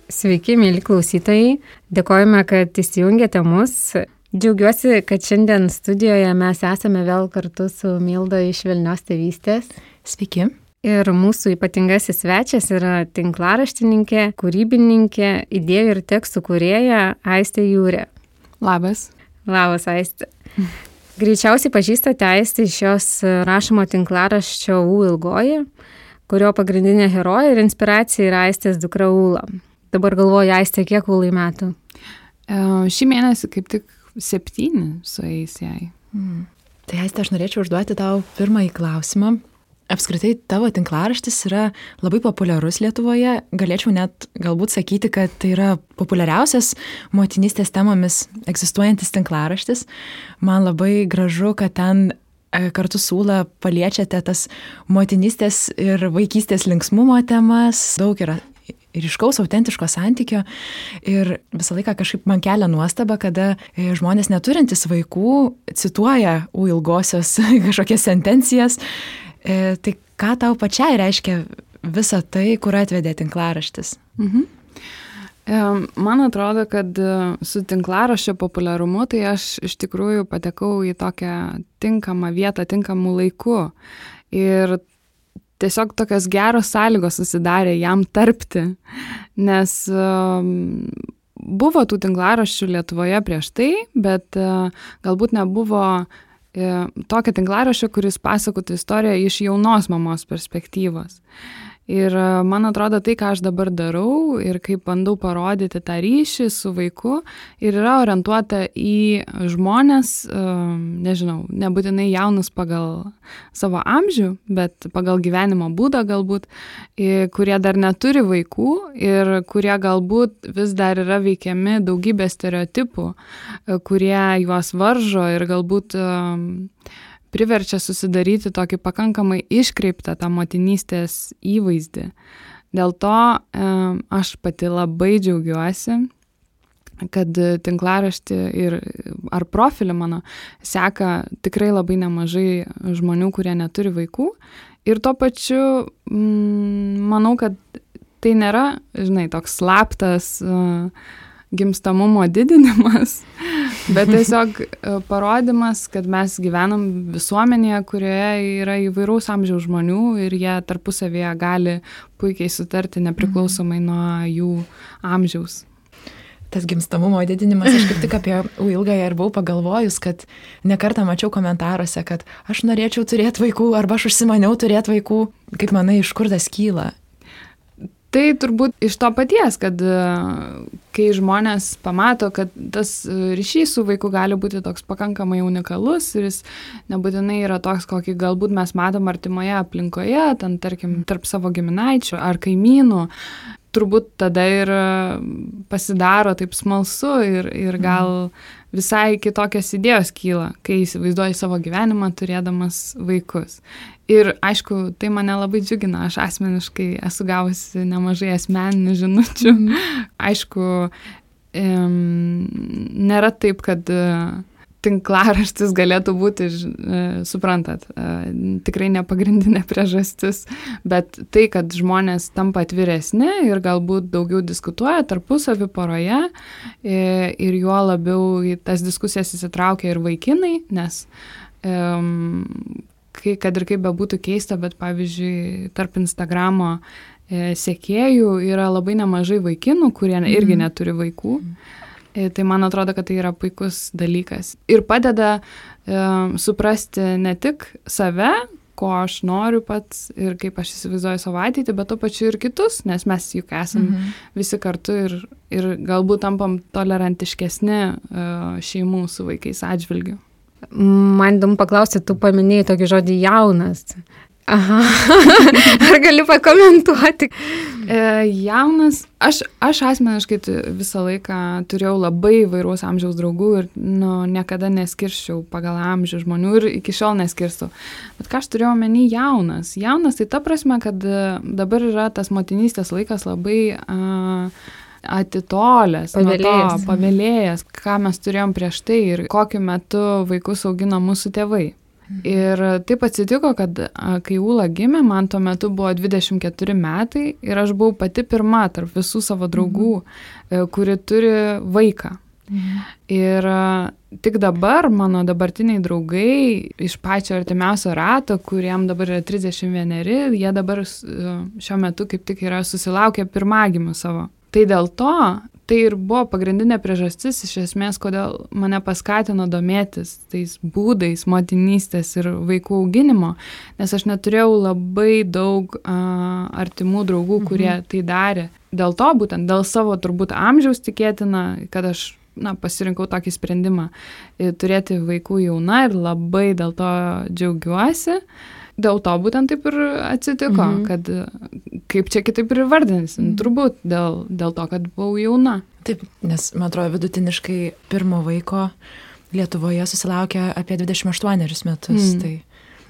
Sveiki, mėly klausytojai. Dėkojame, kad įsijungėte mus. Džiaugiuosi, kad šiandien studijoje mes esame vėl kartu su Milda iš Švelnios tėvystės. Sveiki. Ir mūsų ypatingasis svečias yra tinklaraštininkė, kūrybininkė, idėjų ir tekstų kūrėja Aistė Jūrė. Labas. Labas, Aistė. Greičiausiai pažįstate Aistę iš jos rašomo tinklaraščio U ilgoji, kurio pagrindinė herojė ir inspiracija yra Aistės dukra Ūla. Dabar galvoju, Aistė, kiek Ūlai metų? Šį mėnesį kaip tik 7 sueis jai. Tai Aistė, aš norėčiau užduoti tau pirmąjį klausimą. Apskritai, tavo tinklaraštis yra labai populiarus Lietuvoje. Galėčiau net galbūt sakyti, kad tai yra populiariausias motinystės temomis egzistuojantis tinklaraštis. Man labai gražu, kad ten kartu su Ūla paliečiate tas motinystės ir vaikystės linksmumo temas. Daug yra ryškaus, autentiško santykio ir visą laiką kažkaip man kelia nuostaba, kada žmonės neturintys vaikų cituoja U ilgosios kažkokias sentencijas. Tai ką tau pačiai reiškia visa tai, kur atvedė tinklaraštis? Man atrodo, kad su tinklaraščio populiarumu tai aš iš tikrųjų patekau į tokią tinkamą vietą, tinkamų laikų. Ir tiesiog tokios geros sąlygos susidarė jam tarpti, nes buvo tų tinklaraščių Lietuvoje prieš tai, bet galbūt nebuvo tokio tinklaraščio, kuris pasakotų istoriją iš jaunos mamos perspektyvos. Ir man atrodo, tai, ką aš dabar darau ir kaip bandau parodyti tą ryšį su vaiku, ir yra orientuota į žmonės, nežinau, nebūtinai jaunus pagal savo amžių, bet pagal gyvenimo būdą galbūt, kurie dar neturi vaikų ir kurie galbūt vis dar yra veikiami daugybė stereotipų, kurie juos varžo ir galbūt priverčia susidaryti tokį pakankamai iškreiptą tą motinystės įvaizdį. Dėl to aš pati labai džiaugiuosi, kad tinklaraštį ar profilį mano seka tikrai labai nemažai žmonių, kurie neturi vaikų. Ir tuo pačiu manau, kad tai nėra, toks slaptas gimstamumo didinimas, bet tiesiog parodymas, kad mes gyvenam visuomenėje, kurioje yra įvairaus amžiaus žmonių ir jie tarpusavėje gali puikiai sutarti nepriklausomai nuo jų amžiaus. Tas gimstamumo didinimas, aš kaip tik apie U ilgąją ir buvau pagalvojus, kad nekartą mačiau komentaruose, kad aš norėčiau turėti vaikų arba aš užsimaniau turėti vaikų. Kaip manai, iš kur tas kyla? Tai turbūt iš to paties, kad kai žmonės pamato, kad tas ryšys su vaiku gali būti toks pakankamai unikalus ir jis nebūtinai yra toks, kokį galbūt mes matom artimoje aplinkoje, ten tarkim tarp savo giminaičių ar kaimynų, turbūt tada ir pasidaro taip smalsu ir gal visai kitokios idėjos kyla, kai įsivaizduoji savo gyvenimą turėdamas vaikus. Ir aišku, tai mane labai džiugina, aš asmeniškai esu gavusi nemažai asmeninių žinučių. Aišku, nėra taip, kad tinklaraštis galėtų būti, suprantat, tikrai nepagrindinė priežastis, bet tai, kad žmonės tampa atviresni ir galbūt daugiau diskutuoja tarpusavy poroje ir juo labiau į tas diskusijas įsitraukia ir vaikinai, nes kad ir kaip bebūtų keista, bet pavyzdžiui, tarp Instagramo sekėjų yra labai nemažai vaikinų, kurie irgi neturi vaikų. Tai man atrodo, kad tai yra puikus dalykas. Ir padeda suprasti ne tik save, ko aš noriu pats ir kaip aš įsivaizduoju savo ateitį, bet to pačiu ir kitus, nes mes juk esam visi kartu ir galbūt tampam tolerantiškesni šeimų su vaikais atžvilgiu. Man įdomu paklausti, tu paminėjai tokį žodį jaunas. Aha, ar gali pakomentuoti? Jaunas, aš asmeniškai visą laiką turėjau labai įvairaus amžiaus draugų ir niekada neskirščiau pagal amžių žmonių ir iki šiol neskirstau. Bet ką aš turėjau omeny jaunas? Jaunas tai ta prasme, kad dabar yra tas motinystės laikas labai atitolęs, pavėlėjęs, ką mes turėjom prieš tai ir kokiu metu vaikus augino mūsų tėvai. Ir taip atsitiko, kad kai Ūla gimė, man tuo metu buvo 24 metai ir aš buvau pati pirma tarp visų savo draugų, kuri turi vaiką. Ir tik dabar mano dabartiniai draugai iš pačio artimiausio rato, kuriem dabar yra 31, jie dabar šiuo metu kaip tik yra susilaukę pirmagimių savo. Tai dėl to, tai ir buvo pagrindinė priežastis iš esmės, kodėl mane paskatino domėtis tais būdais motinystės ir vaikų auginimo, nes aš neturėjau labai daug artimų draugų, kurie tai darė. Dėl to, būtent dėl savo turbūt amžiaus tikėtina, kad aš pasirinkau tokį sprendimą turėti vaikų jauna ir labai dėl to džiaugiuosi. Dėl to būtent taip ir atsitiko, kad kaip čia kitaip ir vardinsim, turbūt dėl to, kad buvau jauna. Taip, nes, man atrodo, vidutiniškai pirmo vaiko Lietuvoje susilaukia apie 28 metus. Tai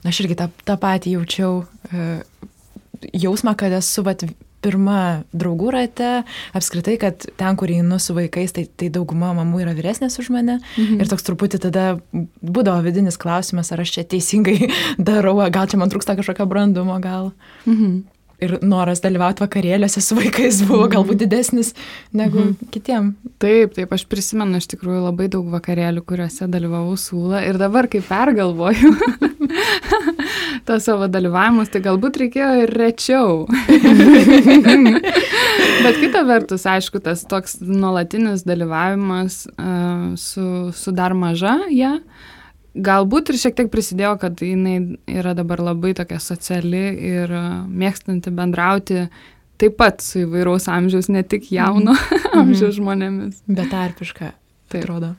aš irgi tą patį jaučiau jausmą, kad esu pirma draugų rate, apskritai, kad ten, kur einu su vaikais, tai dauguma mamų yra vyresnės už mane. Ir toks truputį tada būdavo vidinis klausimas, ar aš čia teisingai darau, gal čia man trūksta kažkokio brandumo, gal. Ir noras dalyvauti vakarėliuose su vaikais buvo galbūt didesnis negu kitiem. Taip, aš prisimenu iš tikrųjų labai daug vakarėlių, kuriuose dalyvavau su Ūla. Ir dabar, kai pergalvoju tos savo dalyvavimus, tai galbūt reikėjo ir rečiau. Bet kita vertus, aišku, tas toks nuolatinis dalyvavimas su dar maža, galbūt ir šiek tiek prisidėjo, kad jinai yra dabar labai tokia sociali ir mėgstanti bendrauti taip pat su įvairaus amžiaus, ne tik jauno amžiaus žmonėmis. Betarpiška, tai atrodo.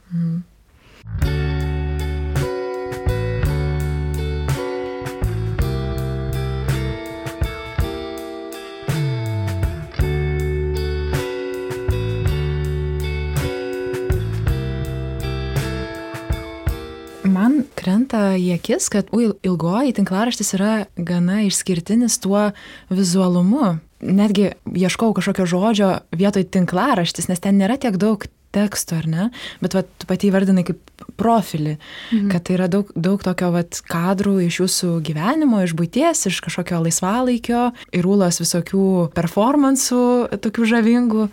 Man krenta į akis, kad ilgoji tinklaraštis yra gana išskirtinis tuo vizualumu. Netgi ieškau kažkokio žodžio vietoj tinklaraštis, nes ten nėra tiek daug teksto, ar ne? Bet tu pati įvardinai kaip profilį, kad tai yra daug tokio kadrų iš jūsų gyvenimo, iš buities, iš kažkokio laisvalaikio, ir Ūlos visokių performansų, tokių žavingų.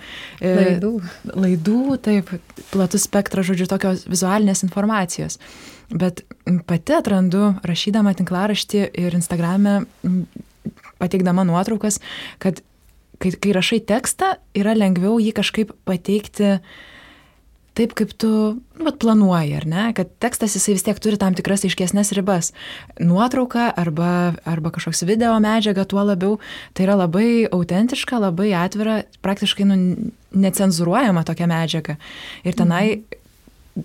Laidų, taip, platus spektras, žodžiu, tokios vizualinės informacijos. Bet pati atrandu, rašydama tinklaraštį ir Instagrame, pateikdama nuotraukas, kad kai rašai tekstą, yra lengviau jį kažkaip pateikti taip, kaip tu planuoji, ar ne? Kad tekstas jisai vis tiek turi tam tikras aiškesnės ribas. Nuotrauka arba kažkoks video medžiaga, tuo labiau, tai yra labai autentiška, labai atvira, praktiškai necenzuruojama tokia medžiaga. Ir tenai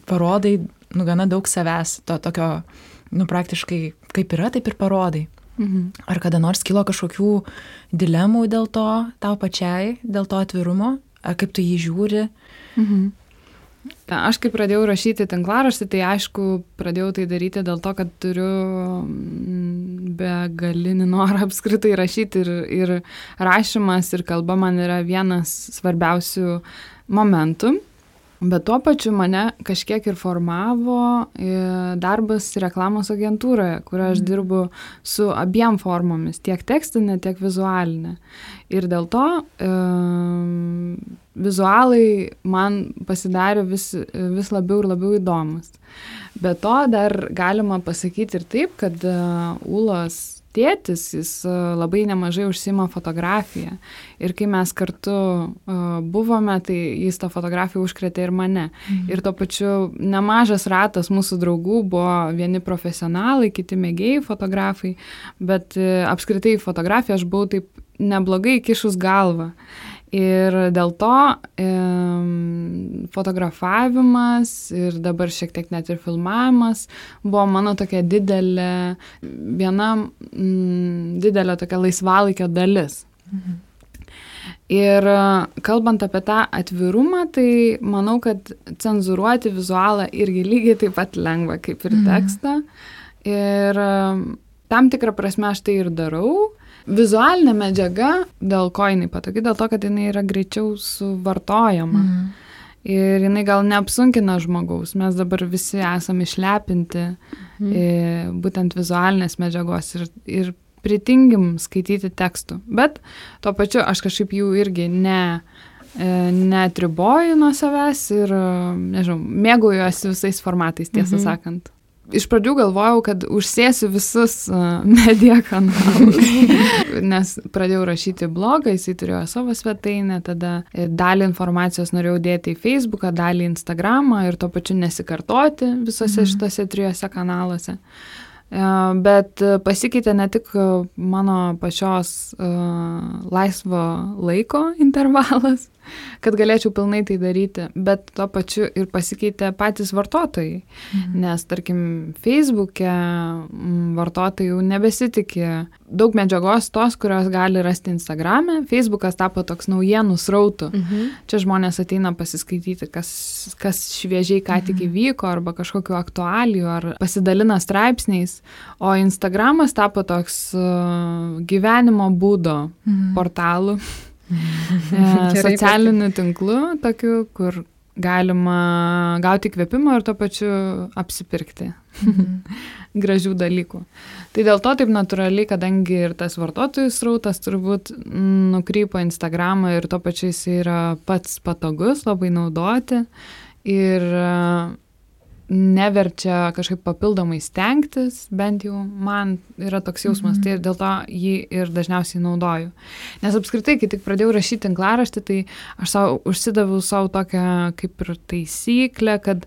parodai gana daug savęs, to tokio, praktiškai kaip yra, taip ir parodai. Ar kada nors kilo kažkokių dilemų dėl to, tau pačiai, dėl to atvirumo, ar kaip tu jį žiūri? Aš kai pradėjau rašyti tinklaraštį, tai aišku, pradėjau tai daryti dėl to, kad turiu begalinį norą apskritai rašyti ir rašymas ir kalba man yra vienas svarbiausių momentų. Bet tuo pačiu mane kažkiek ir formavo darbas reklamos agentūroje, kur aš dirbu su abiem formomis, tiek tekstinė, tiek vizualinė. Ir dėl to vizualai man pasidarė vis labiau ir labiau įdomus. Be to dar galima pasakyti ir taip, kad Ūlos tėtis, jis labai nemažai užsiima fotografiją. Ir kai mes kartu buvome, tai jis tą fotografiją užkrėtė ir mane. Ir tuo pačiu nemažas ratas mūsų draugų buvo vieni profesionalai, kiti mėgėjai fotografai, bet apskritai fotografiją aš buvau taip neblogai kišus galvą. Ir dėl to fotografavimas ir dabar šiek tiek net ir filmavimas buvo mano tokia didelė tokia laisvalaikio dalis. Ir kalbant apie tą atvirumą, tai manau, kad cenzuruoti vizualą irgi lygiai taip pat lengva kaip ir tekstą. Ir tam tikrą prasme aš tai ir darau. Vizualinė medžiaga, dėl ko jinai patogi, dėl to, kad jinai yra greičiau suvartojama. Ir jinai gal neapsunkina žmogaus. Mes dabar visi esame išlepinti būtent vizualinės medžiagos ir pritingim skaityti tekstų. Bet tuo pačiu aš kažkaip jų irgi neatriboju nuo savęs ir, nežinau, mėgaujuosi visais formatais, tiesą sakant. Iš pradžių galvojau, kad užsėsiu visus media kanalus, nes pradėjau rašyti blogą, jisai turėjo savo svetainę, tada dalį informacijos norėjau dėti į Facebooką, dalį į Instagramą ir tuo pačiu nesikartoti visose šitose 3 kanaluose. Bet pasikeitė ne tik mano pačios laisvo laiko intervalas, kad galėčiau pilnai tai daryti, bet tuo pačiu ir pasikeitė patys vartotojai. Nes, tarkim, Facebook'e vartotojai jau nebesitikė daug medžiagos tos, kurios gali rasti Instagram'e. Facebook'as tapo toks naujienų srautų. Čia žmonės ateina pasiskaityti, kas šviežiai ką tik įvyko, arba kažkokiu aktualijų, ar pasidalina straipsniais. O Instagram'as tapo toks gyvenimo būdo portalų. Socialinių tinklų, tokių, kur galima gauti kvėpimo ir tuo pačiu apsipirkti gražių dalykų. Tai dėl to taip natūraliai, kadangi ir tas vartotojų srautas turbūt nukrypo Instagramą ir tuo pačiu jis yra pats patogus, labai naudoti ir neverčia kažkaip papildomai stengtis, bent jau man yra toks jausmas, tai ir dėl to jį ir dažniausiai naudoju. Nes apskritai, kai tik pradėjau rašyti tinklaraštį, tai aš užsidaviau savo tokią kaip ir taisyklę, kad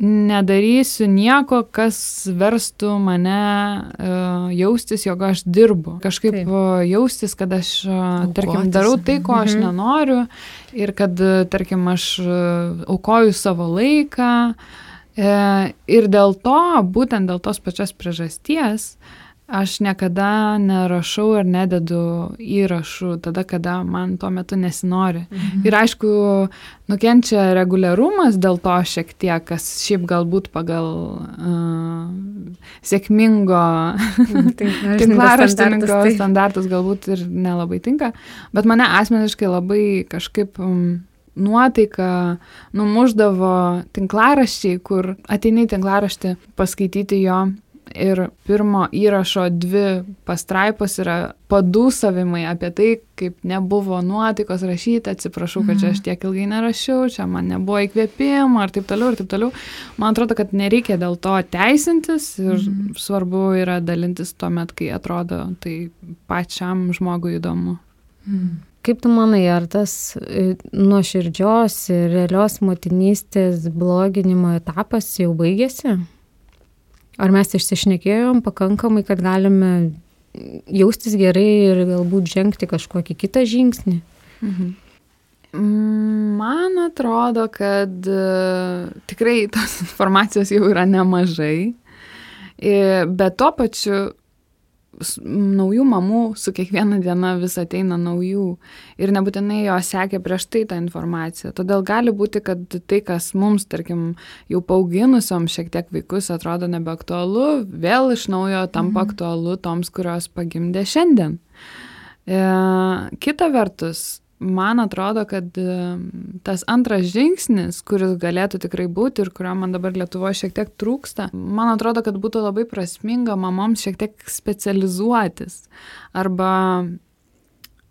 nedarysiu nieko, kas verstų mane jaustis, jog aš dirbu. Kažkaip jaustis, kad aš, tarkim, darau tai, ko aš nenoriu ir kad, tarkim, aš aukoju savo laiką. Ir dėl to, būtent dėl tos pačios priežasties, aš niekada nerašau ir nededu įrašų tada, kada man tuo metu nesinori. Ir aišku, nukenčia reguliarumas dėl to šiek tiek, kas šiaip galbūt pagal sėkmingo tinklaraštininko standartus galbūt ir nelabai tinka, bet mane asmeniškai labai kažkaip nuotaika numuždavo tinklaraščiai, kur ateini tinklaraštį paskaityti jo ir pirmo įrašo 2 pastraipos yra padūsavimai apie tai, kaip nebuvo nuotaikos rašyti, atsiprašau, kad čia aš tiek ilgai nerašiau, čia man nebuvo įkvėpimo ir taip toliau, ir taip toliau. Man atrodo, kad nereikia dėl to teisintis ir svarbu yra dalintis tuomet, kai atrodo tai pačiam žmogui įdomu. Kaip tu manai, ar tas nuoširdžios ir realios motinystės bloginimo etapas jau baigėsi? Ar mes išsišnekėjom pakankamai, kad galime jaustis gerai ir galbūt žengti kažkokį kitą žingsnį? Man atrodo, kad tikrai tos informacijos jau yra nemažai, bet tuo pačiu naujų mamų su kiekviena diena vis ateina naujų ir nebūtinai jo sekė prieš tai tą informaciją. Todėl gali būti, kad tai, kas mums, tarkim, jau paauginusiom šiek tiek vaikus atrodo nebeaktualu, vėl iš naujo tampa aktualu toms, kurios pagimdė šiandien. Kita vertus, man atrodo, kad tas antras žingsnis, kuris galėtų tikrai būti ir kurio man dabar Lietuvoje šiek tiek trūksta, man atrodo, kad būtų labai prasminga mamoms šiek tiek specializuotis arba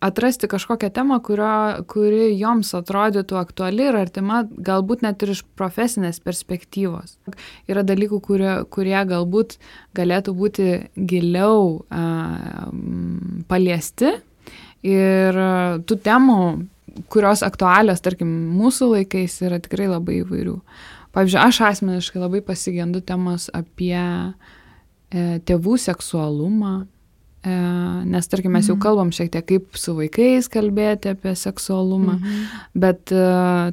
atrasti kažkokią temą, kuri joms atrodytų aktuali ir artima, galbūt net ir iš profesinės perspektyvos. Yra dalykų, kurie galbūt galėtų būti giliau paliesti. Ir tų temų, kurios aktualios, tarkim, mūsų laikais yra tikrai labai įvairių. Pavyzdžiui, aš asmeniškai labai pasigendu temos apie tėvų seksualumą, nes, tarkim, mes jau kalbam šiek tiek kaip su vaikais kalbėti apie seksualumą, bet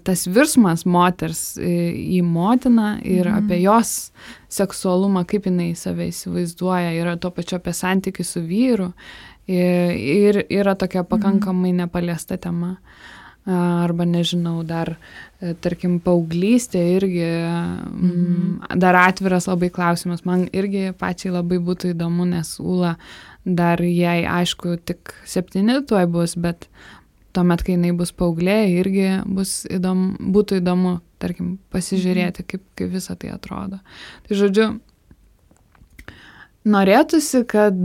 tas virsmas moters į motiną ir apie jos seksualumą, kaip jinai save įsivaizduoja, yra tuo pačiu apie santykį su vyru. Ir yra tokia pakankamai nepaliesta tema. Arba, nežinau, dar, tarkim, paauglystė irgi dar atviras labai klausimas. Man irgi pačiai labai būtų įdomu, nes Ūla dar jai, aišku, tik 7 tuoj bus, bet tuomet, kai jinai bus paauglė, irgi būtų įdomu tarkim, pasižiūrėti, kaip visą tai atrodo. Tai žodžiu, norėtųsi, kad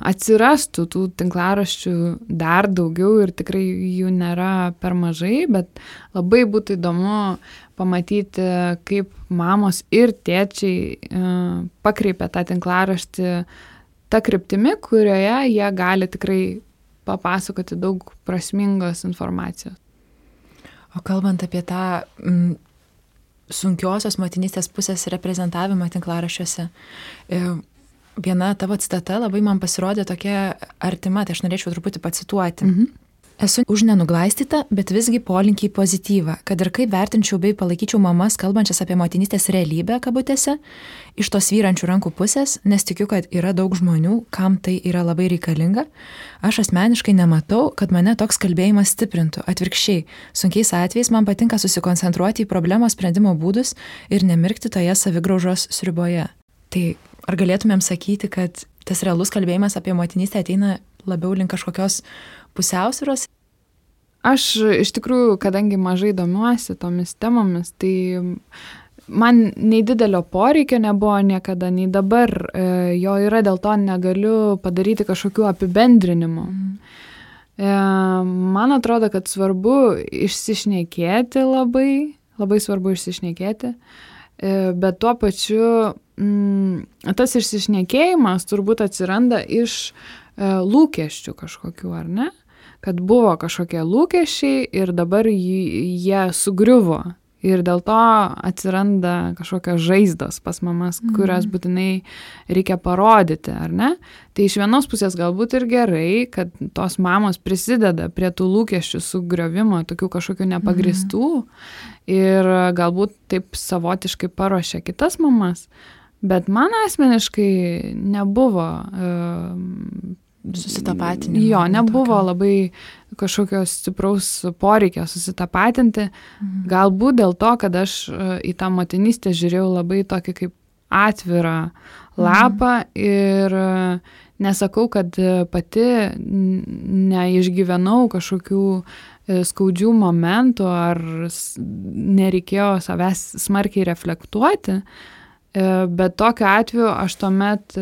atsirastų tų tinklaraščių dar daugiau ir tikrai jų nėra per mažai, bet labai būtų įdomu pamatyti, kaip mamos ir tėčiai pakreipia tą tinklaraštį tą kryptimi, kurioje jie gali tikrai papasakoti daug prasmingos informacijos. O kalbant apie tą sunkiosios motinystės pusės reprezentavimą tinklaraščiuose. Viena tavo citata labai man pasirodė tokia artima, tai aš norėčiau truputį pacituoti. Esu už nenuglaistytą, bet visgi polinkį į pozityvą, kad ir kaip vertinčiau bei palaikyčiau mamas, kalbančias apie motinystės realybę, kabutėse, iš tos vyrančių rankų pusės, nes tikiu, kad yra daug žmonių, kam tai yra labai reikalinga. Aš asmeniškai nematau, kad mane toks kalbėjimas stiprintų. Atvirkščiai, sunkiais atvejais man patinka susikoncentruoti į problemos sprendimo būdus ir nemirkti toje savigraužos sriuboje. Tai ar galėtumėm sakyti, kad tas realus kalbėjimas apie motinystę ateina labiau link kažkokios pusiausvyros? Aš iš tikrųjų, kadangi mažai domiuosi tomis temomis, tai man nei didelio poreikio nebuvo niekada, nei dabar jo yra, dėl to negaliu padaryti kažkokių apibendrinimų. Man atrodo, kad svarbu išsišnekėti labai svarbu išsišnekėti, bet tuo pačiu tas išsišnekėjimas turbūt atsiranda iš lūkesčių kažkokių, ar ne? Kad buvo kažkokie lūkesčiai ir dabar jie sugriuvo. Ir dėl to atsiranda kažkokios žaizdos pas mamas, kurias būtinai reikia parodyti, ar ne? Tai iš vienos pusės galbūt ir gerai, kad tos mamos prisideda prie tų lūkesčių sugriovimo, tokių kažkokių nepagristų ir galbūt taip savotiškai paruošia kitas mamas. Bet man asmeniškai nebuvo susitapatinimo. Jo, nebuvo labai kažkokios stipraus poreikio susitapatinti. Galbūt dėl to, kad aš į tą motinystę žiūrėjau labai tokį kaip atvirą lapą ir nesakau, kad pati neišgyvenau kažkokių skaudžių momentų ar nereikėjo savęs smarkiai reflektuoti. Bet tokiu atveju aš tuomet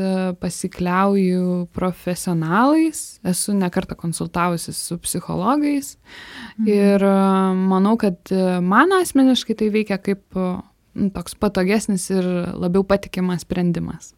pasikliauju profesionalais, esu nekartą konsultavusi su psichologais ir manau, kad man asmeniškai tai veikia kaip toks patogesnis ir labiau patikimas sprendimas.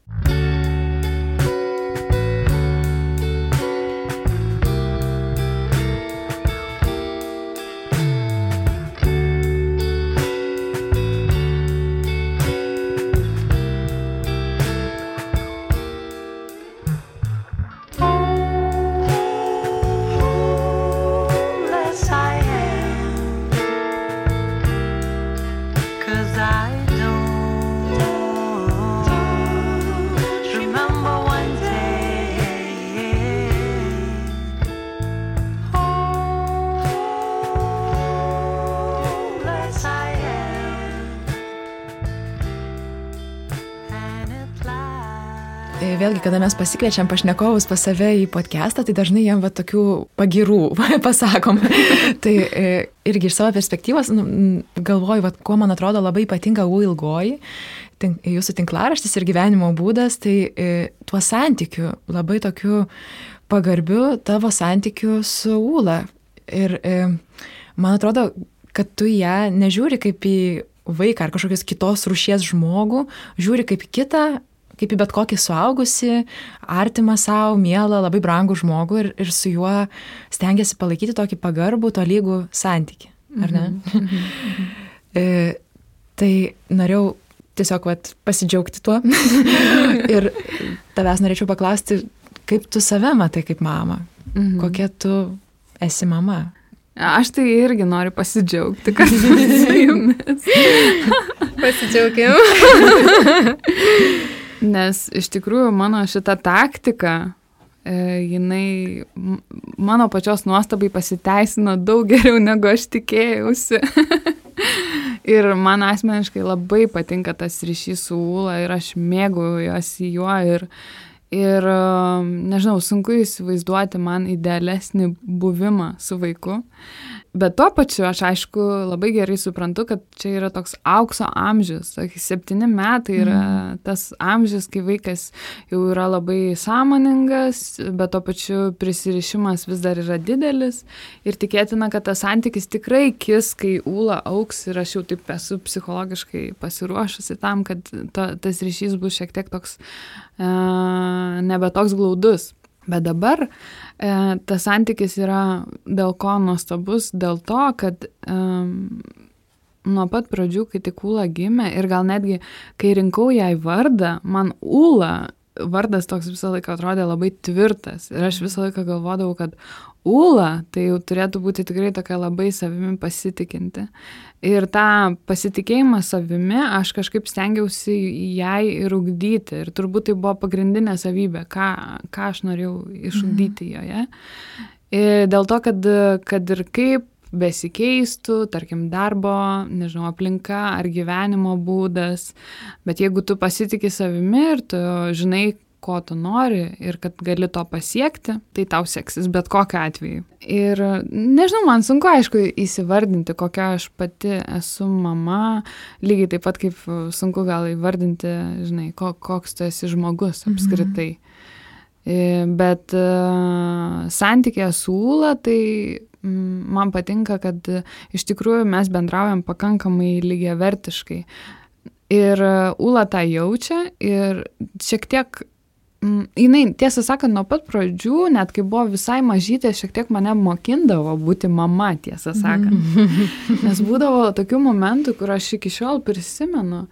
Vėlgi, kada mes pasikviečiam pašnekovus pas save į podcastą, tai dažnai jiem tokių pagirų pasakom. Tai irgi iš savo perspektyvos galvoju, kuo man atrodo labai ypatinga U ilgoji, jūsų tinklaraštis ir gyvenimo būdas, tai tuo santykiu, labai tokiu pagarbiu tavo santykiu su Ūla. Ir man atrodo, kad tu ją nežiūri kaip į vaiką ar kažkokios kitos rūšies žmogų, žiūri kaip į kitą, kaip į bet kokį suaugusį, artimą savo, mielą, labai brangų žmogų ir su juo stengiasi palaikyti tokį pagarbų, tolygų santykį, ar ne? Tai norėjau tiesiog pasidžiaugti tuo ir tavęs norėčiau paklausti, kaip tu save matai kaip mama, kokia tu esi mama. Aš tai irgi noriu pasidžiaugti, kad su jumis. Pasidžiaugiam. Nes iš tikrųjų mano šita taktika, jinai mano pačios nuostabai pasiteisino daug geriau, negu aš tikėjausi. Ir man asmeniškai labai patinka tas ryšys su Ūla ir aš mėgaujuosi juo ir nežinau, sunku įsivaizduoti man idealesnį buvimą su vaiku. Bet tuo pačiu aš aišku labai gerai suprantu, kad čia yra toks aukso amžius. 7 metai yra tas amžius, kai vaikas jau yra labai sąmoningas, bet tuo pačiu prisirišimas vis dar yra didelis. Ir tikėtina, kad tas santykis tikrai kis, kai Ūla auks ir aš jau taip esu psichologiškai pasiruošusi tam, kad tas ryšys bus šiek tiek toks nebe toks glaudus. Bet dabar tas santykis yra dėl ko nuostabus, dėl to, kad nuo pat pradžių, kai tik Ūla gimė ir gal netgi, kai rinkau jai vardą, man Ūla vardas toks visą laiką atrodė labai tvirtas ir aš visą laiką galvodavau, kad Ūla tai jau turėtų būti tikrai tokia labai savimi pasitikinti. Ir tą pasitikėjimą savimi aš kažkaip stengiausi jai ir ugdyti. Ir turbūt tai buvo pagrindinė savybė, ką aš norėjau išugdyti joje. Ir dėl to, kad ir kaip besikeistų, tarkim, darbo, nežinau, aplinka ar gyvenimo būdas, bet jeigu tu pasitiki savimi ir tu žinai, ko tu nori ir kad gali to pasiekti, tai tau seksis bet kokiu atveju. Ir nežinau, man sunku, aišku, įsivardinti, kokia aš pati esu mama, lygiai taip pat kaip sunku gal įvardinti, žinai, koks tu esi žmogus apskritai. Bet santykė su Ūla, tai man patinka, kad iš tikrųjų mes bendraujam pakankamai lygiavertiškai. Ir Ūla tą jaučia ir šiek tiek jinai, tiesą sakant, nuo pat pradžių, net kai buvo visai mažytė, šiek tiek mane mokindavo būti mama, tiesą sakant. Nes būdavo tokių momentų, kur aš iki šiol prisimenu.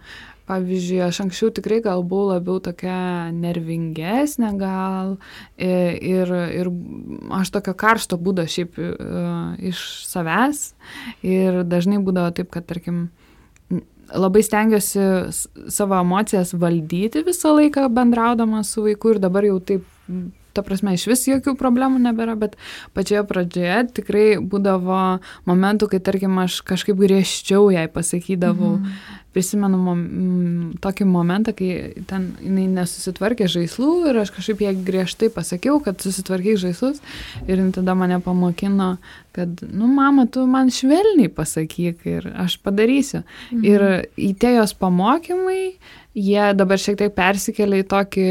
Pavyzdžiui, aš anksčiau tikrai gal buvau labiau tokia nervingesnė gal ir aš tokio karšto būdo šiaip iš savęs ir dažnai būdavo taip, kad, tarkim, labai stengiuosi savo emocijas valdyti visą laiką bendraudama su vaiku ir dabar jau taip, ta prasme, iš vis jokių problemų nebėra, bet pačioje pradžioje tikrai būdavo momentų, kai, tarkim, aš kažkaip griežčiau jai pasakydavau. Prisimenu tokį momentą, kai ten jinai nesusitvarkė žaislų ir aš kažkaip jai griežtai pasakiau, kad susitvarkyk žaislus ir tada mane pamokino, kad, mama, tu man švelniai pasakyk ir aš padarysiu. Ir į tie jos pamokymai, jie dabar šiek tiek persikelia į tokį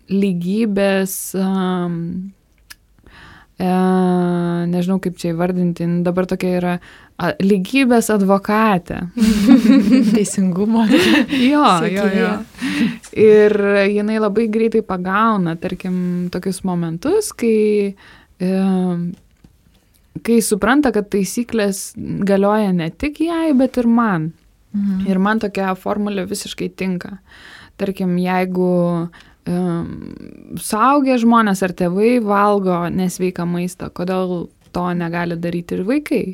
lygybės, nežinau kaip čia įvardinti, dabar tokia yra lygybės advokatė. Teisingumo. Jo. Ir jinai labai greitai pagauna, tarkim, tokius momentus, kai supranta, kad taisyklės galioja ne tik jai, bet ir man. Ir man tokia formulė visiškai tinka. Tarkim, jeigu suaugę žmonės ar tėvai valgo nesveiką maistą, kodėl to negali daryti ir vaikai?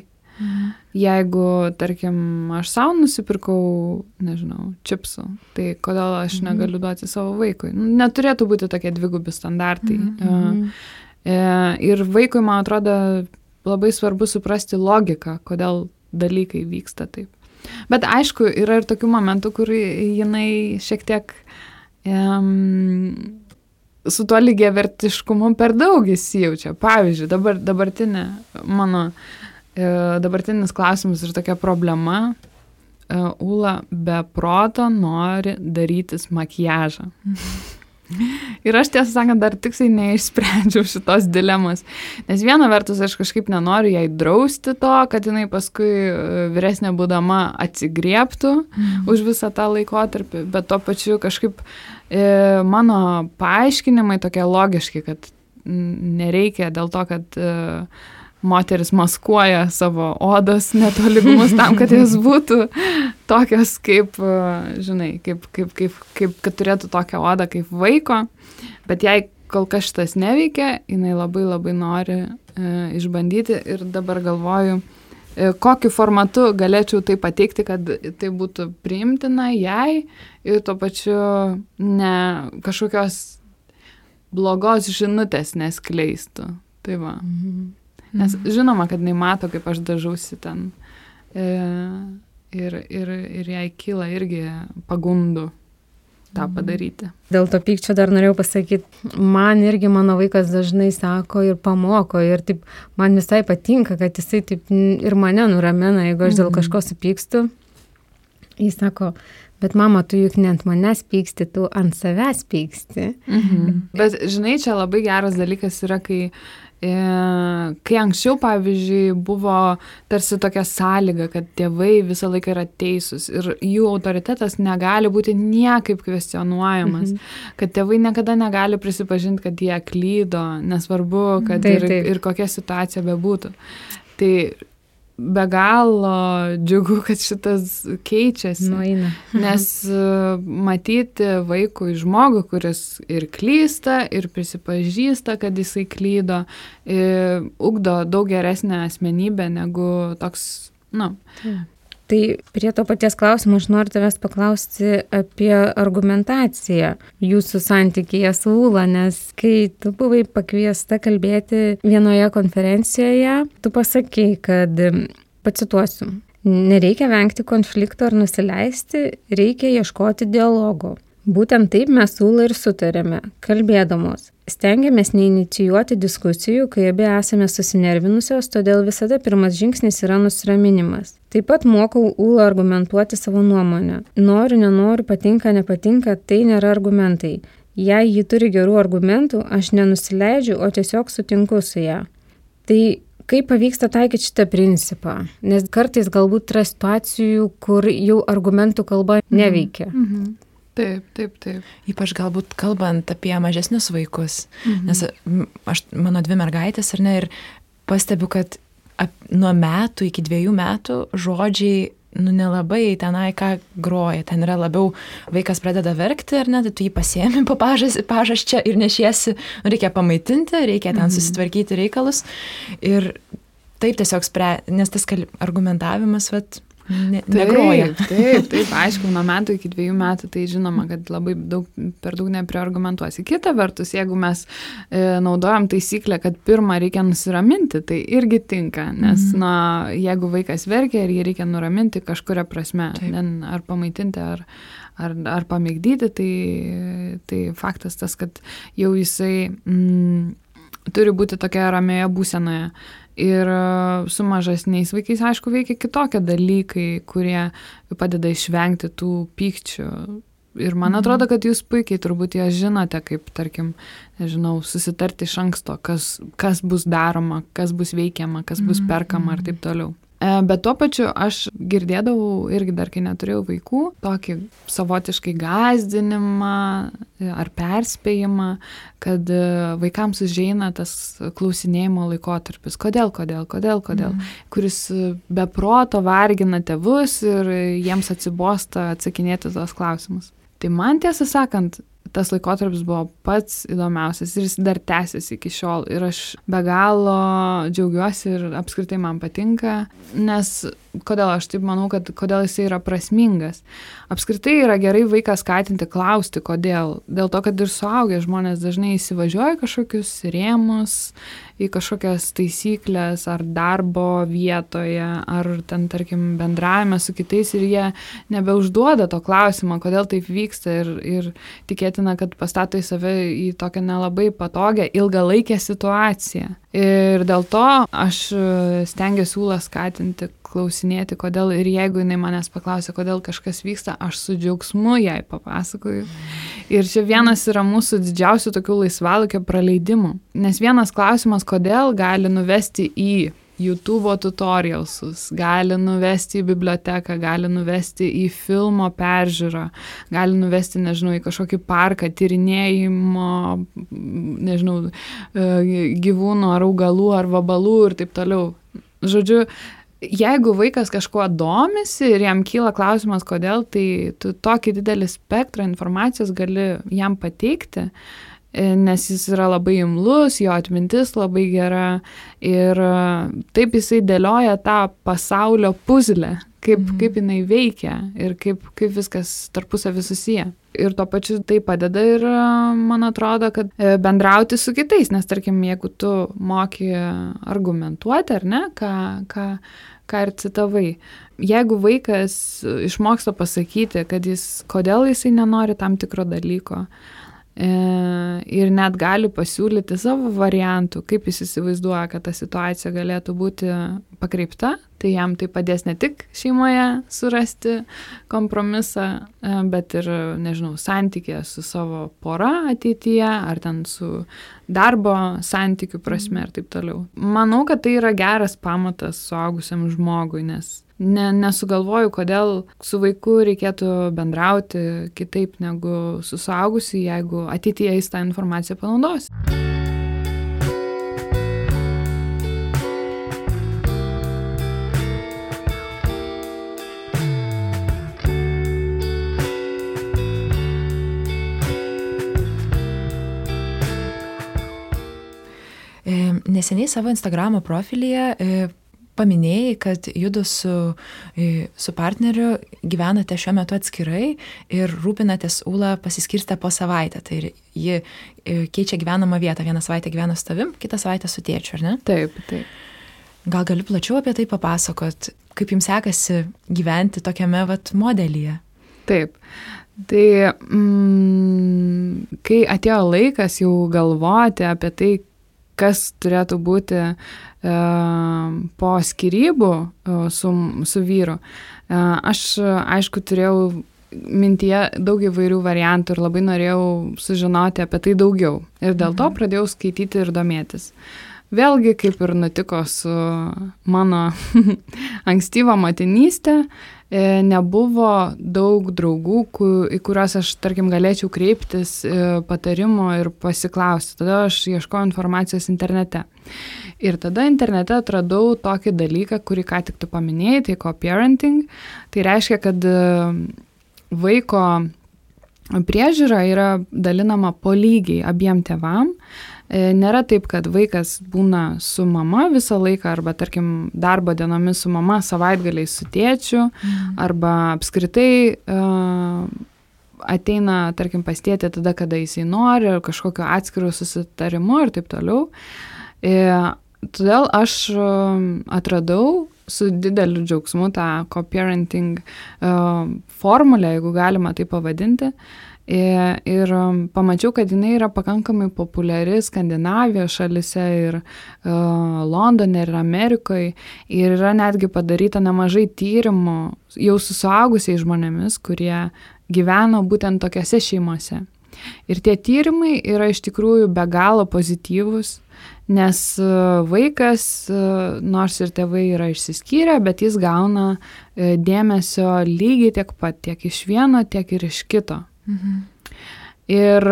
Jeigu, tarkim, aš savo nusipirkau, nežinau, čipsų, tai kodėl aš negaliu duoti savo vaikui? Neturėtų būti tokie dvigubi standartai. Ir vaikui, man atrodo, labai svarbu suprasti logiką, kodėl dalykai vyksta taip. Bet aišku, yra ir tokių momentų, kur jinai šiek tiek su tuo lygiavertiškumu per daug įsijaučia. Pavyzdžiui, dabartinis klausimas ir tokia problema, Ūla be proto nori darytis makiažą. Ir aš, tiesą sakant, dar tiksliai neišsprendžiau šitos dilemos. Nes viena vertus aš kažkaip nenoriu jai drausti to, kad jinai paskui vyresnė būdama atsigriebtų už visą tą laikotarpį, bet tuo pačiu kažkaip mano paaiškinimai tokie logiški, kad nereikia dėl to, kad moteris maskuoja savo odos netolygumus tam, kad jas būtų tokios kaip, žinai, kaip kad turėtų tokią odą kaip vaiko, bet jei kol kas šitas neveikia, jinai labai labai nori išbandyti ir dabar galvoju, kokiu formatu galėčiau tai pateikti, kad tai būtų priimtina jai ir tuo pačiu ne kažkokios blogos žinutės neskleistų. Tai va. Nes žinoma, kad jinai mato, kaip aš dažausi ten ir jai kyla irgi pagundų. tą padaryti. Dėl to pykčio dar norėjau pasakyti, man irgi mano vaikas dažnai sako ir pamoko ir taip, man visai patinka, kad jisai taip ir mane nuramina, jeigu aš dėl kažko supykstu. Jis sako, bet mama, tu juk ne ant manęs pyksti, tu ant savęs pyksti. Bet žinai, čia labai geras dalykas yra, kai anksčiau, pavyzdžiui, buvo tarsi tokia sąlyga, kad tėvai visą laiką yra teisūs ir jų autoritetas negali būti niekaip kvestionuojamas, kad tėvai niekada negali prisipažinti, kad jie klydo, nesvarbu, kad ir kokia situacija bebūtų. Tai be galo džiugu, kad šitas keičiasi, nes matyti vaikui žmogų, kuris ir klysta, ir prisipažįsta, kad jisai klydo, ugdo daug geresnę asmenybę negu toks, Tai prie to paties klausimo aš noriu tavęs paklausti apie argumentaciją jūsų santykyje su Ūla, nes kai tu buvai pakviesta kalbėti vienoje konferencijoje, tu pasakei, kad, pacituosiu, nereikia vengti konflikto ar nusileisti, reikia ieškoti dialogo. Būtent taip mes su Ūla ir sutarėme, kalbėdamos. Stengiamės neinicijuoti diskusijų, kai abi esame susinervinusios, todėl visada pirmas žingsnis yra nusiraminimas. Taip pat mokau Ūlą argumentuoti savo nuomonę. Noriu, nenoriu, patinka, nepatinka, tai nėra argumentai. Jei ji turi gerų argumentų, aš nenusileidžiu, o tiesiog sutinku su ją. Tai kaip pavyksta taikyti šitą principą? Nes kartais galbūt yra situacijų, kur jau argumentų kalba neveikia. Taip. Ypač galbūt kalbant apie mažesnius vaikus, nes mano 2 mergaitės, ar ne, ir pastebiu, kad nuo metų iki 2 metų žodžiai, nelabai tenai ką groja, ten yra labiau vaikas pradeda verkti, ar ne, tai tu jį pasiemi po pažasčia ir nešiesi, reikia pamaitinti, reikia ten susitvarkyti reikalus ir taip tiesiog nes tas argumentavimas, negroja. Taip, aišku, nuo metų iki 2 metų, tai žinoma, kad labai per daug nepriargumentuosi. Kita vertus, jeigu mes naudojam taisyklę, kad pirmą reikia nusiraminti, tai irgi tinka, nes jeigu vaikas verkia ir jį reikia nuraminti kažkuria prasme, ar pamaitinti, ar pamėgdyti, tai faktas tas, kad jau jisai turi būti tokia ramioje būsenoje. Ir su mažesniais vaikais, aišku, veikia kitokie dalykai, kurie padeda išvengti tų pykčių. Ir man atrodo, kad jūs puikiai turbūt ją žinote, kaip, tarkim, nežinau, susitarti iš anksto, kas bus daroma, kas bus veikiama, kas bus perkama ir taip toliau. Bet tuo pačiu aš girdėdavau irgi dar, kai neturėjau vaikų, tokį savotiškai gąsdinimą ar perspėjimą, kad vaikams užeina tas klausinėjimo laikotarpis. Kodėl, kuris be proto vargina tėvus ir jiems atsibosta atsakinėti tos klausimus. Tai man, tiesą sakant, tas laikotarpis buvo pats įdomiausias ir jis dar tęsiasi iki šiol. Ir aš be galo džiaugiuosi ir apskritai man patinka, nes kodėl aš taip manau, kad kodėl jisai yra prasmingas. Apskritai yra gerai vaiką skatinti klausti, kodėl. Dėl to, kad ir suaugę žmonės dažnai įsivažiuoja kažkokius rėmus, į kažkokias taisyklės ar darbo vietoje, ar ten, tarkim, bendravime su kitais ir jie nebeužduoda to klausimo, kodėl taip vyksta ir tikėtina, kad pastato į save į tokią nelabai patogią ilgalaikę situaciją. Ir dėl to aš stengiuosi Ūlą skatinti, klausinėti, kodėl, ir jeigu jinai manęs paklausia, kodėl kažkas vyksta, aš su džiaugsmu jai papasakoju. Ir čia vienas yra mūsų didžiausių tokių laisvalaikio praleidimų. Nes vienas klausimas, kodėl, gali nuvesti į YouTube tutorialsus, gali nuvesti į biblioteką, gali nuvesti į filmo peržiūrą, gali nuvesti, nežinau, į kažkokį parką, tyrinėjimo, nežinau, gyvūnų ar augalų ar vabalų ir taip toliau. Žodžiu, jeigu vaikas kažkuo domisi ir jam kyla klausimas, kodėl, tai tu tokį didelį spektrą informacijos gali jam pateikti nes jis yra labai imlus, jo atmintis labai gera ir taip jisai dėlioja tą pasaulio puzlę, kaip jinai veikia ir kaip viskas tarpusavy susiję. Ir tuo pačiu tai padeda ir man atrodo, kad bendrauti su kitais, nes tarkim, jeigu tu moki argumentuoti, ar ne, ką ir citavai, jeigu vaikas išmoksta pasakyti, kad kodėl jisai nenori tam tikro dalyko, ir net gali pasiūlyti savo variantų, kaip jis įsivaizduoja, kad ta situacija galėtų būti pakreipta, tai jam tai padės ne tik šeimoje surasti kompromisą, bet ir, nežinau, santykė su savo pora ateityje, ar ten su darbo santykių prasme ir taip toliau. Manau, kad tai yra geras pamatas suaugusiam žmogui, nes nesugalvoju, kodėl su vaiku reikėtų bendrauti kitaip negu su suaugusiu, jeigu ateityje jis tą informaciją panaudos. Neseniai savo Instagramo profilyje paminėjai, kad judu su partneriu gyvenate šiuo metu atskirai ir rūpinatės Ūlą pasiskirstę po savaitę. Tai ji keičia gyvenamą vietą. Vieną savaitę gyvena su tavim, kitą savaitę su tėčiu, ar ne? Taip. Gal gali plačiau apie tai papasakot, kaip jums sekasi gyventi tokiame modelyje? Taip. Tai kai atėjo laikas jau galvoti apie tai, kas turėtų būti po skyrybų su vyru. Aš, aišku, turėjau mintyje daug įvairių variantų ir labai norėjau sužinoti apie tai daugiau. Ir dėl to pradėjau skaityti ir domėtis. Vėlgi, kaip ir nutiko su mano ankstyva motinystė, nebuvo daug draugų, į kuriuos aš, tarkim, galėčiau kreiptis patarimo ir pasiklausti. Tada aš ieškojau informacijos internete. Ir tada internete atradau tokį dalyką, kurį ką tik tu paminėjai, tai co-parenting. Tai reiškia, kad vaiko priežiūra yra dalinama po lygiai abiem tėvam. Nėra taip, kad vaikas būna su mama visą laiką, arba, tarkim, darbo dienomis su mama, savaitgaliais su tėčiu, arba apskritai ateina, tarkim, pas tėtį tada, kada jisai nori, ar kažkokio atskiro susitarimu ir taip toliau. Todėl aš atradau su dideliu džiaugsmu tą co-parenting formulę, jeigu galima tai pavadinti. Ir pamačiau, kad jinai yra pakankamai populiari Skandinavijos šalise ir Londone ir Amerikoje. Ir yra netgi padaryta nemažai tyrimų jau su suaugusiais žmonėmis, kurie gyveno būtent tokiose šeimose. Ir tie tyrimai yra iš tikrųjų be galo pozityvūs, nes vaikas, nors ir tėvai yra išsiskyrę, bet jis gauna dėmesio lygiai tiek pat, tiek iš vieno, tiek ir iš kito. Ir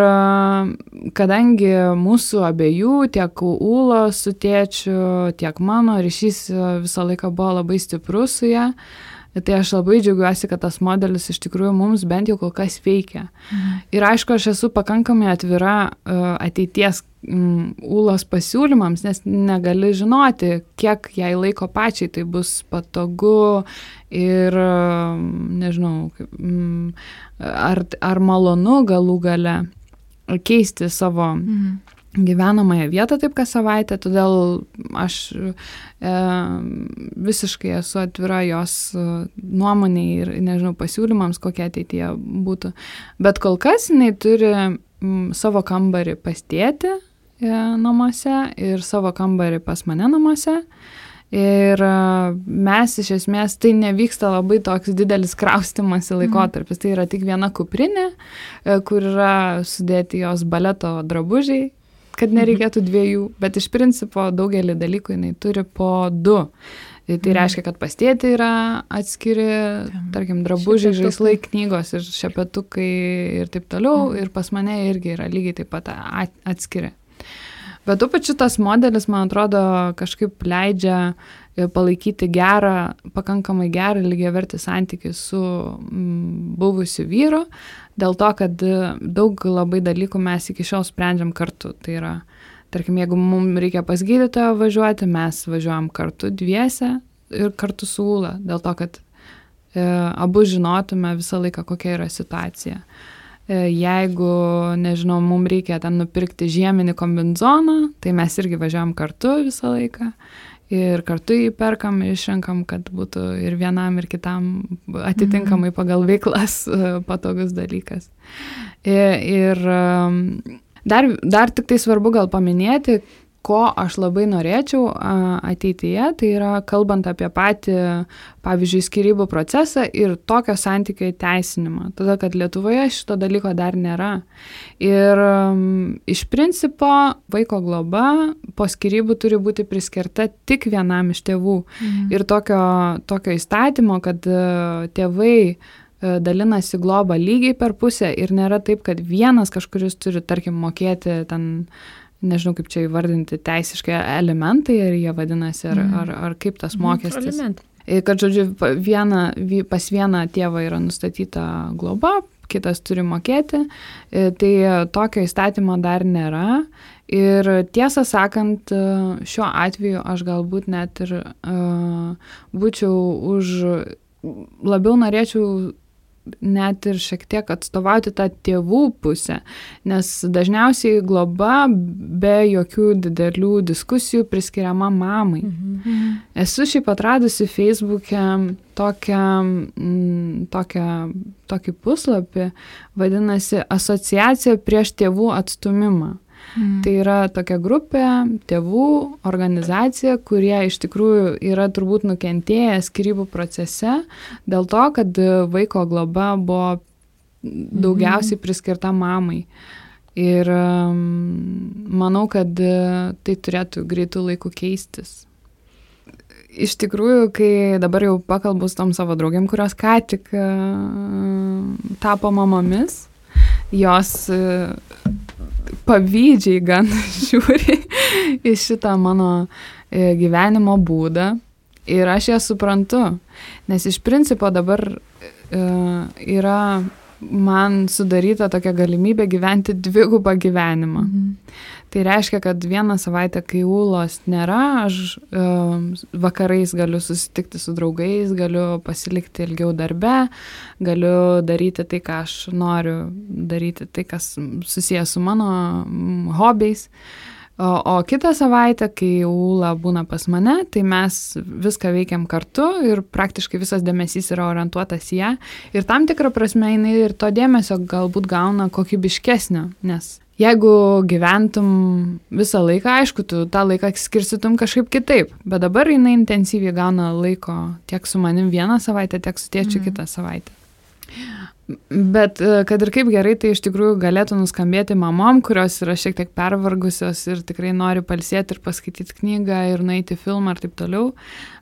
kadangi mūsų abiejų, tiek Ūlos su tėčiu, tiek mano ryšys visą laiką buvo labai stiprus su ja, tai aš labai džiaugiuosi, kad tas modelis iš tikrųjų mums bent jau kol kas veikia. Ir aišku, aš esu pakankamai atvira ateities Ūlos pasiūlymams, nes negali žinoti, kiek jai laiko pačiai tai bus patogu ir, nežinau, ar malonu galų gale keisti savo gyvenamąją vietą taip kas savaitę, todėl aš visiškai esu atvira jos nuomonei ir, nežinau, pasiūlymams, kokie ateityje būtų. Bet kol kas jinai turi savo kambarį pas tėtį namuose ir savo kambarį pas mane namuose. Ir mes iš esmės, tai nevyksta labai toks didelis kraustymasi laikotarpis. Tai yra tik viena kuprinė, kur yra sudėti jos baleto drabužiai, kad nereikėtų dviejų, bet iš principo daugelį dalykų jinai turi po 2. Tai reiškia, kad pas tėtį yra atskiri, tarkim, drabužiai, žaislai, knygos ir šepetukai ir taip toliau, ir pas mane irgi yra lygiai taip pat atskiri. Bet tuo pačiu tas modelis, man atrodo, kažkaip leidžia palaikyti pakankamai gerą lygiavertį santykį su buvusiu vyru, dėl to, kad daug labai dalykų mes iki šiol sprendžiam kartu. Tai yra, tarkim, jeigu mums reikia pas gydytoją važiuoti, mes važiuojam kartu dviese ir kartu su Ūla, dėl to, kad abu žinotume visą laiką, kokia yra situacija. Jeigu, nežinau, mums reikia ten nupirkti žieminį kombinezoną, tai mes irgi važiuojam kartu visą laiką ir kartu jį perkam, išrenkam, kad būtų ir vienam, ir kitam atitinkamai pagal veiklas patogus dalykas. Ir dar tik tai svarbu gal paminėti, ko aš labai norėčiau ateityje, tai yra kalbant apie patį, pavyzdžiui, skyrybų procesą ir tokio santykio įteisinimą. Todėl, kad Lietuvoje šito dalyko dar nėra. Ir iš principo vaiko globa po skyrybų turi būti priskirta tik vienam iš tėvų. Ir tokio įstatymo, kad tėvai dalinasi globą lygiai per pusę ir nėra taip, kad vienas kažkuris turi, tarkim, mokėti ten, nežinau kaip čia įvardinti teisiškai elementai, ar jie vadinasi, ar kaip tas mokestis. Kad, žodžiu, pas vieną tėvą yra nustatyta globa, kitas turi mokėti, tai tokio įstatymo dar nėra. Ir tiesą sakant, šiuo atveju aš galbūt net ir labiau norėčiau net ir šiek tiek atstovauti tą tėvų pusę, nes dažniausiai globa be jokių didelių diskusijų priskiriama mamai. Esu šiaip atradusi Facebook'e tokį puslapį, vadinasi Asociacija prieš tėvų atstūmimą. Tai yra tokia grupė, tėvų organizacija, kurie iš tikrųjų yra turbūt nukentėję skyrybų procese dėl to, kad vaiko globa buvo daugiausiai priskirta mamai. Ir manau, kad tai turėtų greitų laikų keistis. Iš tikrųjų, kai dabar jau pakalbu su tom savo draugėm, kurios ką tik tapo mamomis, jos pavydžiai gan žiūri į šitą mano gyvenimo būdą ir aš ją suprantu, nes iš principo dabar yra man sudaryta tokia galimybė gyventi dvigubą gyvenimą. Tai reiškia, kad vieną savaitę, kai Ūlos nėra, aš vakarais galiu susitikti su draugais, galiu pasilikti ilgiau darbe, galiu daryti tai, ką aš noriu daryti, tai, kas susijęs su mano hobiais. O kitą savaitę, kai Ūla būna pas mane, tai mes viską veikiam kartu ir praktiškai visas dėmesys yra orientuotas į ją. Ir tam tikrą prasme jinai ir to dėmesio galbūt gauna kokybiškesnio, nes jeigu gyventum visą laiką, aišku, tu tą laiką skirstytum kažkaip kitaip, bet dabar jinai intensyviai gauna laiko tiek su manim vieną savaitę, tiek su tėčiu kitą savaitę. Bet kad ir kaip gerai, tai iš tikrųjų galėtų nuskambėti mamom, kurios yra šiek tiek pervargusios ir tikrai nori pailsėti ir paskaityti knygą ir nueiti filmą ir taip toliau.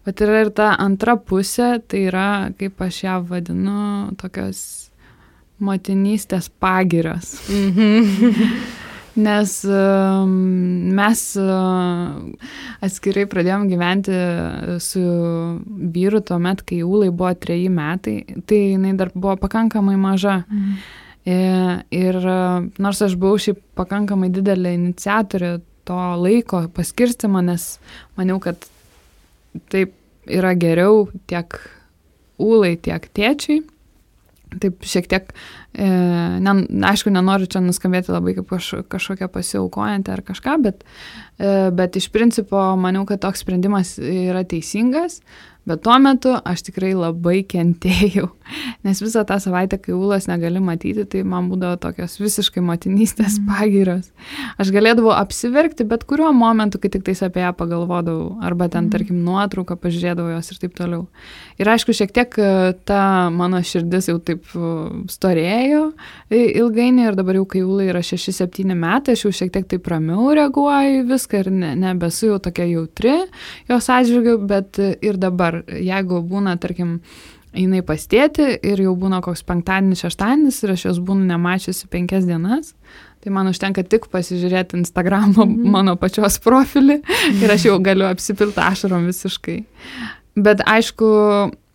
Bet yra ir ta antra pusė, tai yra, kaip aš ją vadinu, tokios motinystės pagirios. Nes mes atskirai pradėjom gyventi su vyru tuomet, kai Ūlai buvo 3 metai, tai jinai dar buvo pakankamai maža. Ir nors aš buvau šiaip pakankamai didelė iniciatorė to laiko paskirstymo, nes maniau, kad taip yra geriau tiek Ūlai, tiek tėčiui. Taip šiek tiek, aišku, nenoriu čia nuskambėti labai kaip kažkokia pasiaukojantį ar kažką, bet iš principo maniau, kad toks sprendimas yra teisingas, bet tuo metu aš tikrai labai kentėjau, nes visą tą savaitę, kai Ūlos negali matyti, tai man būdavo tokios visiškai motinystės pagyros. Aš galėdavau apsiverkti bet kuriuo momentu, kai tik tais apie ją pagalvodavau, arba ten, tarkim, nuotrauką pažiūrėdavau jos ir taip toliau. Ir aišku, šiek tiek ta mano širdis jau taip storėjo ilgainiui ir dabar jau, kai Ūlai yra 6-7 metai, aš jau šiek tiek taip ramiau reaguoju viską ir nebesu jau tokia jautri jos atžvilgiu, bet ir dabar, jeigu būna, tarkim, jinai pas tėtį ir jau būna koks penktadienis, šeštadienis ir aš jos būnu nemačiusi 5 dienas, Tai man užtenka tik pasižiūrėti Instagramo mano pačios profilį ir aš jau galiu apsipilti ašarom visiškai. Bet aišku,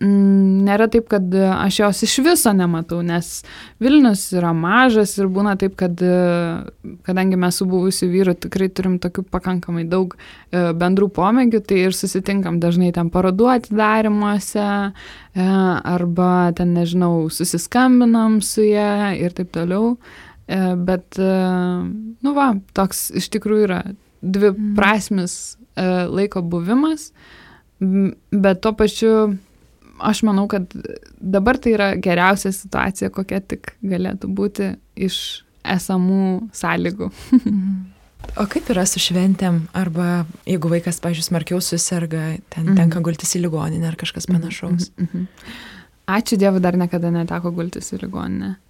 nėra taip, kad aš jos iš viso nematau, nes Vilnius yra mažas ir būna taip, kad kadangi mes su buvusiu vyru tikrai turim tokių pakankamai daug bendrų pomėgių, tai ir susitinkam dažnai ten parodų atidarymuose arba ten, nežinau, susiskambinam su ja ir taip toliau. Bet, toks iš tikrųjų yra dviprasmis laiko buvimas. Bet tuo pačiu aš manau, kad dabar tai yra geriausia situacija, kokia tik galėtų būti iš esamų sąlygų. O kaip yra su šventėm? Arba jeigu vaikas, pavyzdžiui, smarkiau suserga, tenka gultis į ligoninę ar kažkas panašaus? Ačiū Dievui, dar niekada neteko gultis į ligoninę.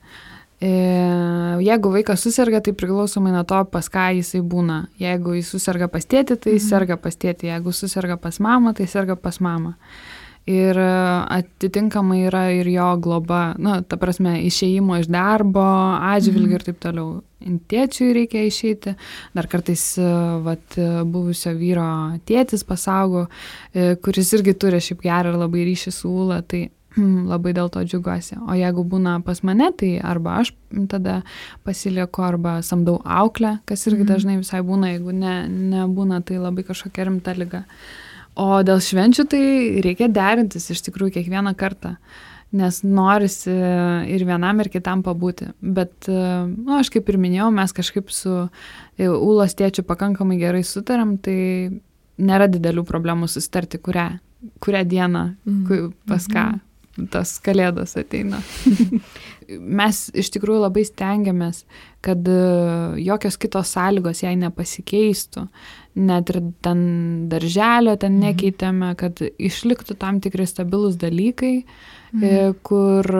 Jeigu vaikas suserga, tai priklausomai nuo to, pas ką jisai būna. Jeigu jis suserga pas tėtį, tai jis serga pas tėtį. Jeigu suserga pas mamą, tai serga pas mamą. Ir atitinkamai yra ir jo globa, ta prasme, išėjimo iš darbo, atžvilgių ir taip toliau. Tėčiui reikia išeiti. Dar kartais buvusio vyro tėtis pasaugo, kuris irgi turi šiaip gerą ir labai ryšį su Ūla, tai labai dėl to džiugiuosi. O jeigu būna pas mane, tai arba aš tada pasilieku, arba samdau auklę, kas irgi dažnai visai būna, jeigu nebūna, tai labai kažkokia rimta liga. O dėl švenčių tai reikia derintis iš tikrųjų kiekvieną kartą, nes norisi ir vienam, ir kitam pabūti. Bet, aš kaip ir minėjau, mes kažkaip su Ūlos tėčiu pakankamai gerai sutariam, tai nėra didelių problemų susitarti, kurią dieną, pas ką tas kalėdos ateina. Mes iš tikrųjų labai stengiamės, kad jokios kitos sąlygos jai nepasikeistų, net ir ten darželio ten nekeitėme, kad išliktų tam tikri stabilus dalykai, kur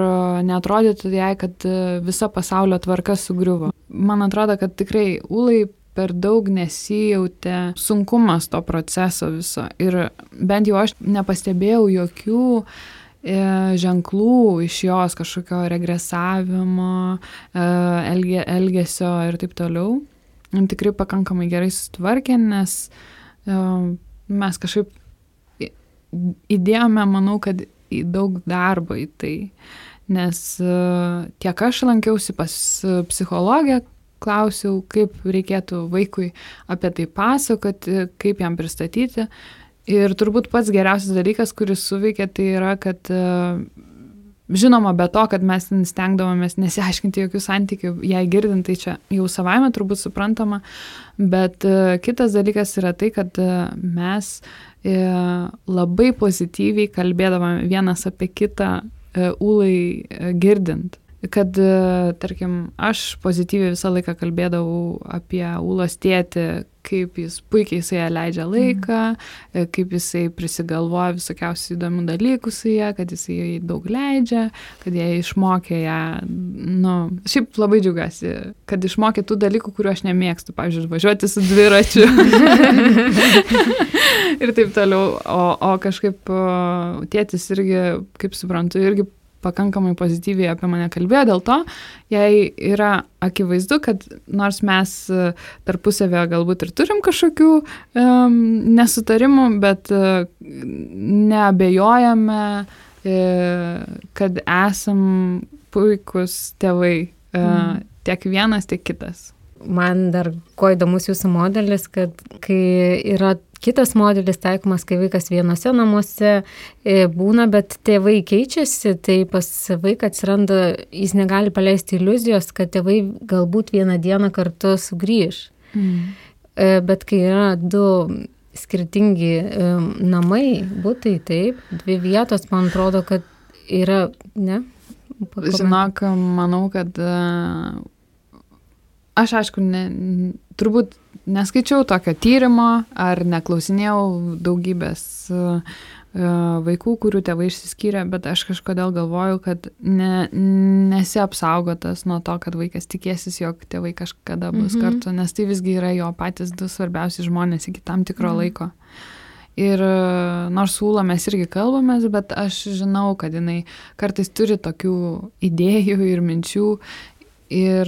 neatrodytų jai, kad visa pasaulio tvarka sugriuvo. Man atrodo, kad tikrai Ūlai per daug nesijautė sunkumas to proceso viso ir bent jau aš nepastebėjau jokių ženklų iš jos kažkokio regresavimo, elgesio ir taip toliau. Tikrai pakankamai gerai sutvarkė, nes mes kažkaip įdėjome, manau, kad į daug darbo į tai, nes tiek aš lankiausi pas psichologę, klausiau, kaip reikėtų vaikui apie tai pasakoti, kaip jam pristatyti. Ir turbūt pats geriausias dalykas, kuris suveikė, tai yra, kad žinoma, be to, kad mes stengdavomės nesiaiškinti jokių santykių, jei girdint, tai čia jau savaime turbūt suprantama, bet kitas dalykas yra tai, kad mes labai pozityviai kalbėdavome vienas apie kitą Ūlai girdint. Kad, tarkim, aš pozityviai visą laiką kalbėdavau apie Ūlos tėtį, kaip jis puikiai su ją leidžia laiką, kaip jisai prisigalvoja visokiausių įdomių dalykų su ją, kad jisai daug leidžia, kad jie išmokė ją, šiaip labai džiaugiuosi, kad išmokė tų dalykų, kuriuo aš nemėgstu, pavyzdžiui, važiuoti su dviračiu ir taip toliau, o kažkaip tėtis irgi, kaip suprantu, irgi pakankamai pozityviai apie mane kalbėjo, dėl to jai yra akivaizdu, kad nors mes tarpusavėje galbūt ir turim kažkokių nesutarimų, bet neabejojame, kad esam puikus tėvai, tiek vienas, tiek kitas. Man dar ko įdomus jūsų modelis, kad kai yra kitas modelis taikomas, kai vaikas vienose namuose būna, bet tėvai keičiasi, tai pas vaiką atsiranda, jis negali paleisti iliuzijos, kad tėvai galbūt vieną dieną kartu sugrįž. Bet kai yra du skirtingi namai, butai, taip, dvi vietos, man atrodo, kad yra, ne? Žinok, manau, kad aš aišku, turbūt neskaičiau tokio tyrimo ar neklausinėjau daugybės vaikų, kurių tėvai išsiskyrė, bet aš kažkodėl galvoju, kad nesi apsaugotas nuo to, kad vaikas tikėsis, jog tėvai kažkada bus kartu, nes tai visgi yra jo patys du svarbiausi žmonės iki tam tikro laiko. Ir nors su Ūla mes irgi kalbamės, bet aš žinau, kad jinai kartais turi tokių idėjų ir minčių ir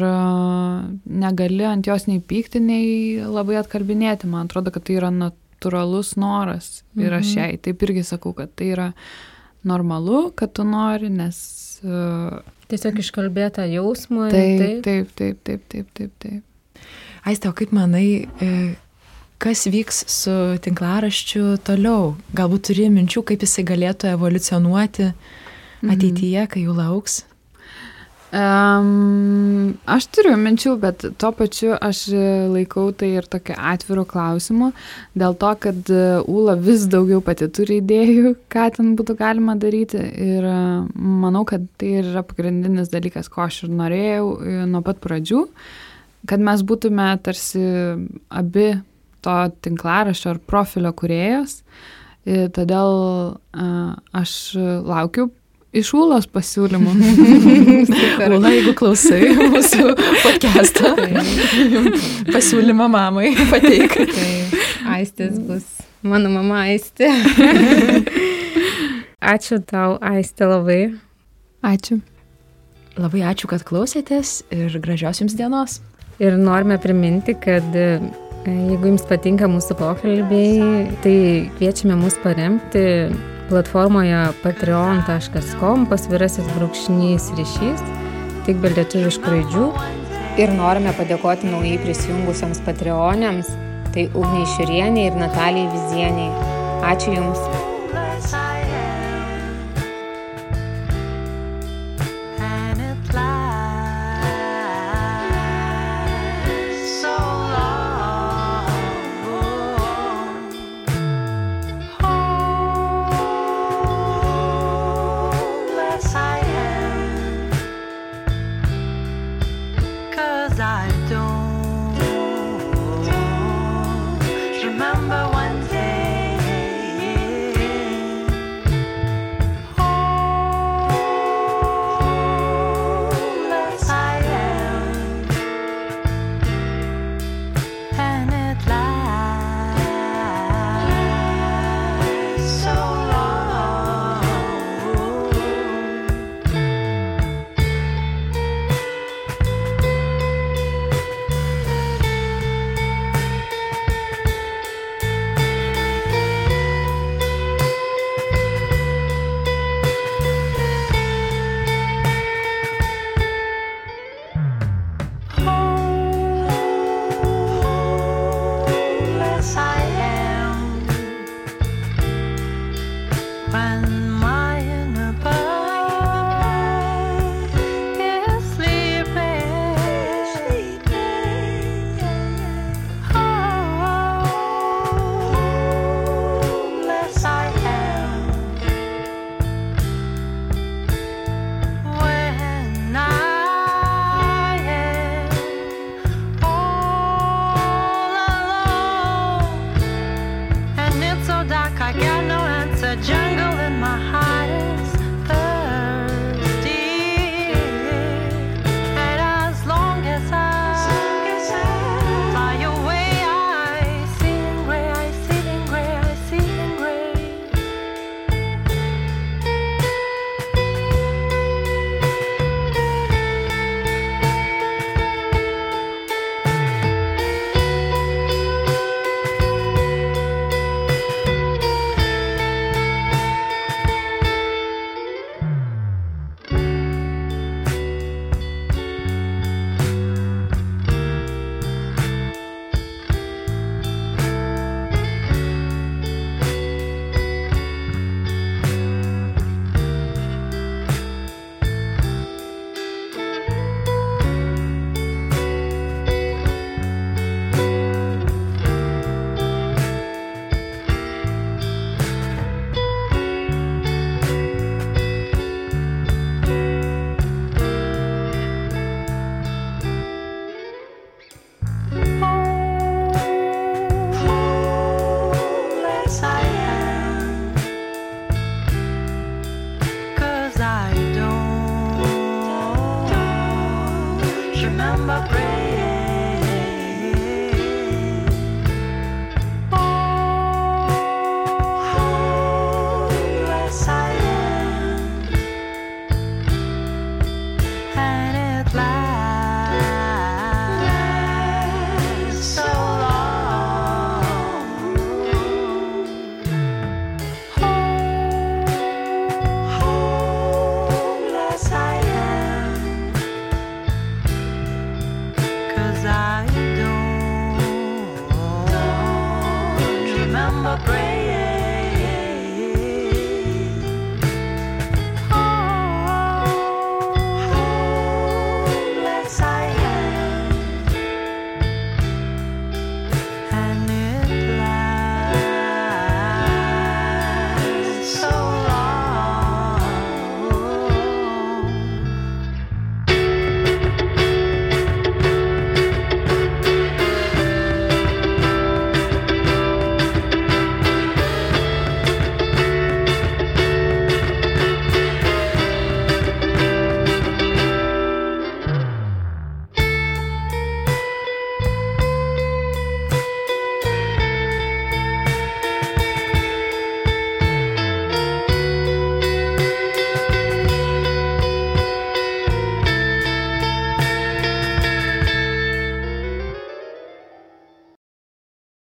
negali ant jos nei pykti, nei labai atkalbinėti. Man atrodo, kad tai yra natūralus noras ir aš jai taip irgi sakau, kad tai yra normalu, kad tu nori, nes... Tiesiog iškalbėtą jausmą. Taip. Aiste, o kaip manai, kas vyks su tinklaraščiu toliau? Galbūt turi minčių, kaip jisai galėtų evoliucionuoti ateityje, kai jų lauks? Aš turiu minčių, bet tuo pačiu aš laikau tai ir tokiu atviru klausimu, dėl to, kad Ūla vis daugiau pati turi idėjų, ką ten būtų galima daryti, ir manau, kad tai yra pagrindinis dalykas, ko aš ir norėjau nuo pat pradžių, kad mes būtume tarsi abi to tinklaraščio ar profilio kūrėjos, todėl aš laukiu iš Ūlos pasiūlymų. Ūla, jeigu klausai mūsų podcastą, pasiūlymą mamai pateik. Tai Aistės bus. Mano mama Aistė. Ačiū tau, Aistė, labai. Ačiū. Labai ačiū, kad klausėtės ir gražios jums dienos. Ir norime priminti, kad jeigu jums patinka mūsų pokalbiai, tai kviečiame mus paremti platformoje patreon.com/ryšys, tik be lietuviškų raidžių. Ir norime padėkoti naujai prisijungusiems patreonėms, tai Ugniai Šiurienei ir Natalijai Vizieniai. Ačiū Jums.